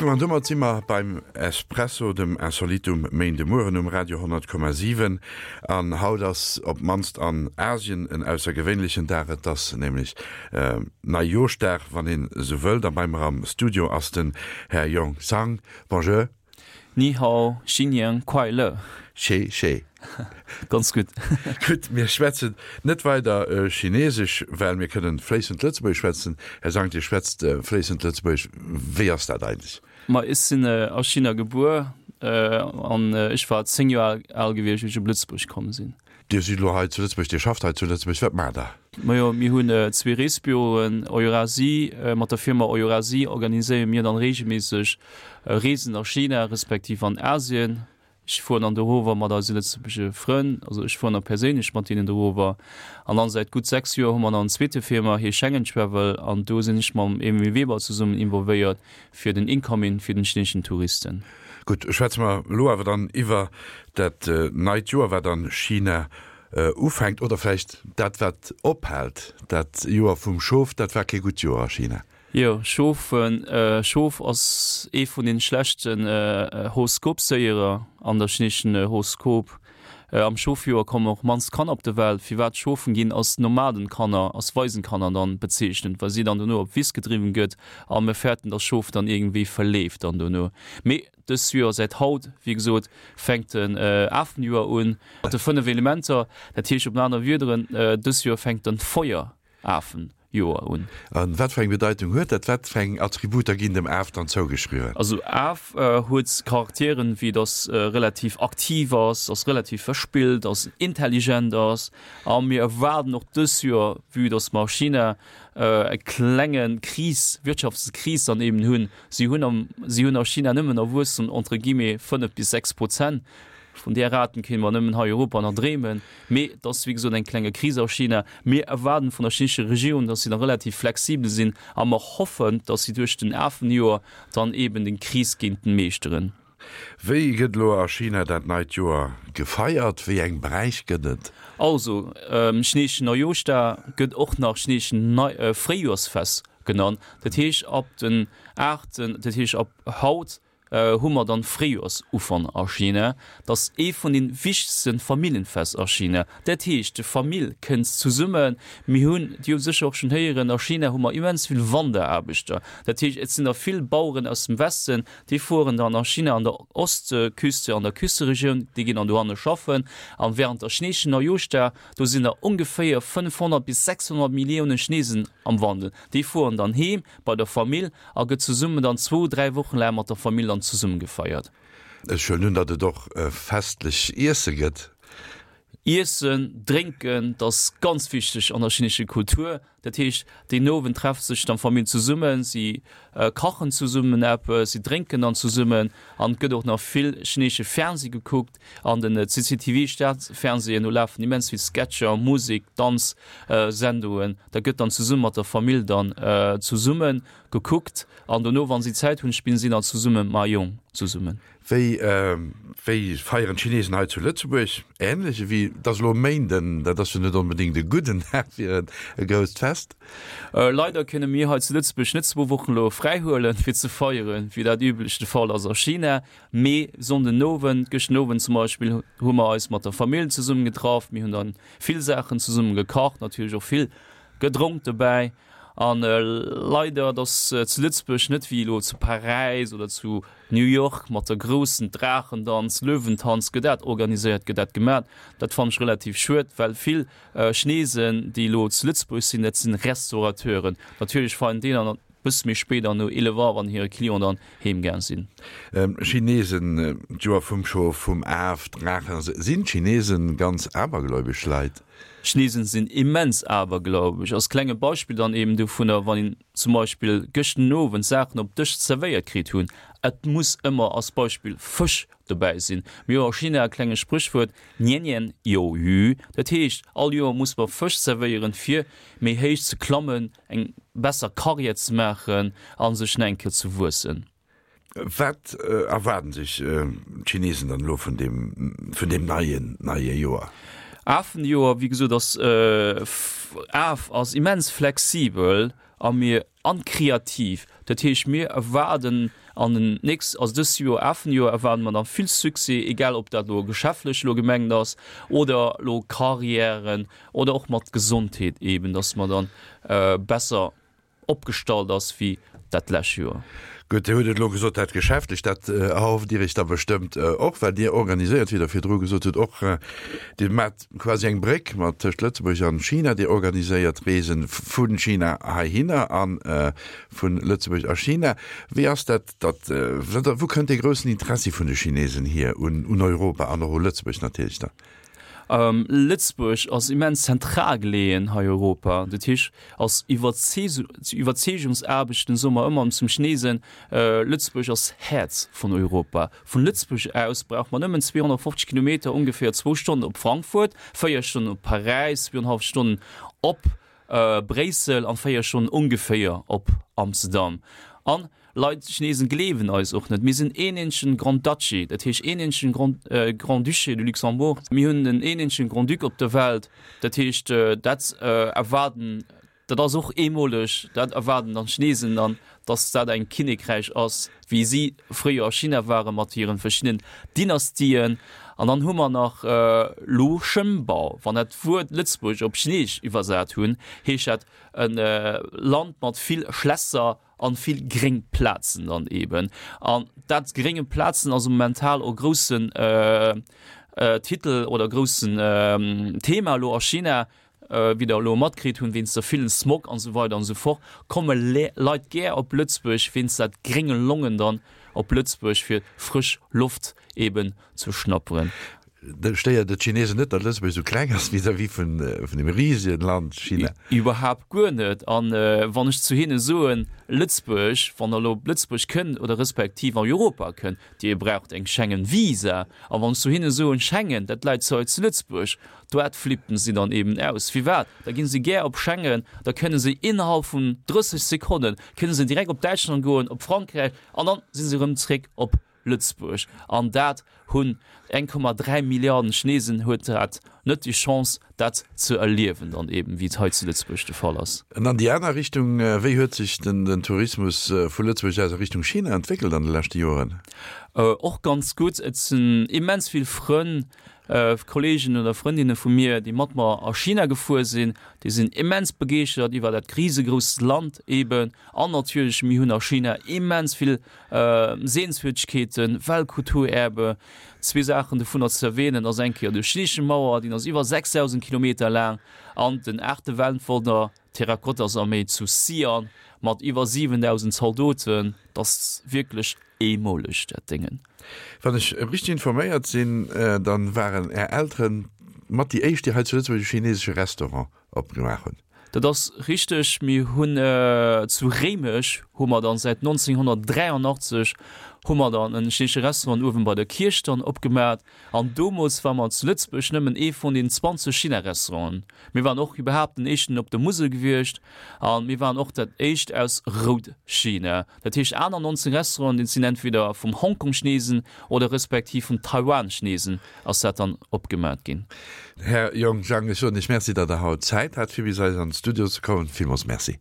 An domat si mer beim Espresso, dem Insolitum Méindemueren um Radio 100,7. An haut ass op d'mannst an Asien en aussergewéinlechen Dag. Et ass nämlech Neijooschdag, wann een esou wëllt. A bei mer am Studio ass den Här Yong Zhang. Bonjour. Ni hao, Xin Nian Kuai Le. Xie xie. Ganz gutt. Gutt, mir schwätzen net weider Chinesesch, well mir kënnen fléissend Lëtzebuergesch schwätzen. Här Zhang, Dir schwätzt fléissend Lëtzebuergesch. Wéi ass dat eigentlech? Ma ech sinn a China gebuer an ech war 10 Joer al gewiescht, wéi ech op Lëtzebuerg komm sinn. Dir sidd elo hei zu Lëtzebuerg, Dir schafft hei zu Lëtzebuerg. Wat maacht Der? Majo, mir hunn zwee Reesbüroen, Eurasie. Mat der Firma Eurasie organiséiere mir dann reegelméisseg Reesen a China respektiv an Asien. Ech fueren dann dorower mat eise lëtzebuergesche Frënn, also ech fueren da perséinlech mat deenen dorower. An dann säit gutt 6 Joer hu mer dann en zweete Firma, hee Schengen Travel, an do sinn ech mam Emile Weber zesummen involvéiert fir den Incoming fir den chineeschen Touristen. Gutt, schwätze mer elo awer dann iwwer dat neit Joer, wat an China ufänkt, oder vläicht dat wat ophält, dat Joer vum Schof, dat war kee gutt Joer a China. Jo, Schof, Schof ass ee vun den schlechten Horoskopséierer an der chineeschen Horoskop. Am Schofjoer kommen och mannst Kanner op de Welt. Firwat Schofen ginn als Nomadenkanner, als Waisenkanner dann bezeechnet, well si dann dono op d'Wiss gedriwwen gëtt a mir fäerten, dass Schof dann iergendwéi verleeft dann dono. Mee dëst Joer, säit haut, wéi gesot, fänkt den Afenjoer un mat de 5 Elementer. Dat heescht op aner Wiederen, dëst Joer fänkt den Feuerafen Joer un. A wat fir eng Bedeitung huet dat? Wat fir eng Attributer ginn dem Af dann zougeschriwwen? Also Af huet Charakteren, wéi dass relativ aktiv ass, dass relativ verspillt ass, intelligent ass. A mir erwaarden och dës Joer, vue dass mer a China e klenge Kris, Wirtschaftskris dann eben hunn, si hunn am, si hunn a China nëmmen e Wuesstum entre guillemets 5 bis 6 Prozent, Vun där Raten kéinte mer nëmmen hei Europa nach dreemen. Mee et ass wéi gesot eng klenge Kris a China. Mir erwaarden vun der chinesescher Regierung, datt si da relativ flexibel sinn a mer hoffen, datt si duerch den Afenjoer dann eeben den Kris géinten meeschteren. Wéi gëtt elo a China dat neit Joer gefeiert? Wéi eng Bräich gëtt et? Also, chineseschen Neujooschdag gëtt och nach chineseschen Fréijoersfest genannt. Dat heescht ab den aachten, dat heescht ab haut hu mer dann Fréijoersufank a China. Dat ass ee vun den wichtegsten Familljenfest a China. Dat heescht, de Famill kënnt zesummen. Mir hunn, Dir hutt sécher och schonn héieren, a China hu mer immens vill Wanderaarbechter. Dat heescht, et sinn der vill Baueren aus dem Westen, déi fueren dann a China an der Ostküste, an der Küsteregioun, déi ginn dann dohanne schaffen. An während der chineeschen Neujooschdag, do sinn der ongeféier 500 bis 600 Milliounen Chinesen am Wandel. Déi fueren dann heem bei der Famill a gëtt zesummen dann zwou, dräi Wochen laang mat der Famill dann zesumme gefeiert. Ech huelen un, datt et och festlech Iesse gëtt. Iessen, drénken, dat ass ganz wichteg an der chinesescher Kultur. Dat heescht, deen Owend trefft sech dann d'Famill zesummen, si kachen zesummen eppes, si drénken dann zesummen an et gëtt och nach vill chinesesche Fernseh gekuckt. An den CCTV Staatsfernsehen, do lafen immens vill Sketcher, Musek, Danz Sendungen. Da gëtt dann zesumme mat der Famill dann zesumme gekuckt an dono wann si Zäit hunn, spillen si dann zesumme Mahjong zesummen. Wéi wéi feieren d'Chinesen hei zu Lëtzebuerg? Ähnlech ewéi, et ass elo e Méinden, dat ass jo net onbedéngt e gudden Dag fir e grousst Fest. Leider kënne mir hei zu Lëtzebuerg net zwou Wochen elo fräi huelen fir ze feieren, wéi dat üblech de Fall ass a China. Mee Sonndenowend, gëschten Owend zum Beispill, hu mer eis mat der Famill zesummen getraff. Mir hunn dann vill Saachen zesummen gekacht, natierlech och vill gedronk dobäi. An leider, et ass zu Lëtzebuerg net wéi elo zu Paräis oder zu New York mat der groussen Draachendanz, Löwentanz, gëtt dat organiséiert, gëtt dat gemat. Dat fannen ech relativ schued, well vill Chinesen, déi elo zu Lëtzebuerg sinn, dat sinn Restaurateuren. Natierlech feieren déi dann Bësse méi spéit an no 11 Auer, wann hire Client dann heem gaang sinn. Chinesen, d'Joer vum Schof, vum Af, Draachen, sinn d'Chinesen ganz abergläubesch Leit? Chinesen sinn immens abergläubesch. Als klenge Beispill dann eben dovunner, wann een zum Beispill gëschten Owend Saachen op Dësch zerwéiert kritt hunn, et muss ëmmer als Beispill Fësch dobäi sinn. Mir hu a China e klenge Spréchwuert, Nian nian you yu, dat heescht, all Joer muss mer Fësch zerwéieren, fir méi héich ze klammen, eng besser Karriär ze maachen a sech nach eng Kéier ze wuessen. Wat erwaarden sech d'Chinesen dann elo vun deem, vun deem neien, neie Joer? Afenjoer, wéi gesot, ass Af ass immens flexibel. a mir an kreativ. Dat heescht mir erwaarden an den nächst, also dëst Joer, afen Joer erwaarde mer dann vill Succès, egal ob dat elo geschäftlech elo gemengt ass oder elo Carrièren oder och mat Gesondheet eben, dass mer dann besser opgestallt ass wéi dat lescht Joer. Gutt, Dir hutt et elo gesot, dat Geschäftlech, dat erhofft Dir Iech da bestëmmt och, well Dir organiséiert, wéi Der virdru gesot hutt, och, Dir maacht quasi eng Bréck mat tëscht Lëtzebuerg an China, Dir organiséiert Reesen vu China heihinner a vu Lëtzebuerg a China. Wéi ass dat, datt, wou kënnt dee groussen Interessi vun de Chinesen hier un Europa an och u Lëtzebuerg natierlech dann? Lëtzebuerg ass immens zentral geleeën hei Europa. Dat heescht, als Iwwerzeegungsaarbechten soe mer ëmmer zum Chinesen, Lëtzebuerg ass Häerz vun Europa. Vun Lëtzebuerg aus brauch mer nëmmen 250 Kilometer, ongeféier zwou Stonnen op Frankfurt, véier Stonnen op Paräis, zwouenhalf Stonnen op Bréissel an 4 Stonnen ongeféier op Amsterdam. An Leit, Chinesen gleewen eis och net. Mir sinn een eenzegen Grand Duchy, dat heescht een eenzegen Grand, Grand-Duché de Luxembourg. Mir hunn en een eenzegen Grand-Duc op der Welt. Dat heescht, dat erwaarden, dat ass och eemoleg, dat erwaarden dann d'Chinesen dann, dass dat eng Kinnekräich ass, wéi si fréier a China ware mat hiren verschiddenen Dynastien. An dann hu mer nach Lu Shenbao. Wann dat Wuert Lëtzebuerg op Chineesch iwwersat hunn, heescht dat e Land mat vill Schlässer an vill gréng Plazen dann eben. An dat grénge Plazen ass momental och groussen Titel oder groussen Thema elo a China. Wéi der elo matkritt hunn, wéinst der villen Smog an esou weider an esou fort, komme Leit gär op Lëtzebuerg wéinst dat grénge Longen dann op Lëtzebuerg fir frësch Loft eben ze schnapperen. Stéiert et d'Chinesen net, datt Lëtzebuerg esou kleng ass vis-à-vis vun dem risegen Land China? Iwwerhaapt guer net. An wann ech zu hinne soen, Lëtzebuerg, wann der elo op Lëtzebuerg kënnt oder respektiv an Europa kënnt, Dir braucht eng Schengen-Visa. A wann ech zu hinne soen, Schengen, dat läit zu hei zu Lëtzebuerg, Doat flippen si dann eben aus. Firwat? Da ginn si gär op Schengen, da kënne si innerhalb vun 30 Sekonnen kënne se direkt op Däitschland goen, op Frankräich an dann si se erëm zréck op Lëtzebuerg. An dat hunn 1,3 Milliarden Chinesen huet dat net déi Chance dat ze erliewen dann eben, wéi et hei zu Lëtzebuerg de Fall ass. An an déi aner Richtung, wéi huet sech den Tourismus vu Lëtzebuerg aus a Richtung China entwéckelt an de leschte Joren? Och ganz gutt. Et sinn immens vill Frënn Kollegen oder Frëndinne vu mir, déi mat mer a China gefuer sinn, déi sinn immens begeeschtert iwwer dat risegrousst Land eben. An natierlech, mir hunn a China immens vill Sehenswürdegkeeten, Weltkulturerbe. Zwee Saachen dovunner ze erwähnen ass eng Kéier de Chinesesche Mauer, deen ass iwwer 6.000 Kilometer laang, an den aachte Weltwonner, d'Terrakottasarméi zu Xi'an mat iwwer 7.000 Zaldoten. Dat ass wierklech eemoleg, dat Déngen. Wann ech richteg informéiert sinn, dann waren Är Elteren mat déi éischt, déi hei zu Lëtzebuerg e chinesesche Restaurant opgemaach hunn. Dat ass richteg. Mir hunn zu Réimech hu mer dann säit 1983 hu mer dann en chinesesche Restaurant uewen bei der Kierch dann opgemaat. An domols war mer zu Lëtzebuerg nëmmen ee vun den 20 China-Restauranten. Mir waren och iwwerhaapt den éischten op der Musel gewiescht a mir waren och dat éischt aus Rout-China. Dat heescht aner 19 Restauranten, déi sinn entweder vum Hongkong-Chinesen oder respektiv vum Taiwan-Chinesen ass dat dann opgemat ginn. Här Yong Zhang, ech soen Iech Merci, datt Der haut Zäit hat fir bis eis an d'Studio ze kommen. Villmools Merci.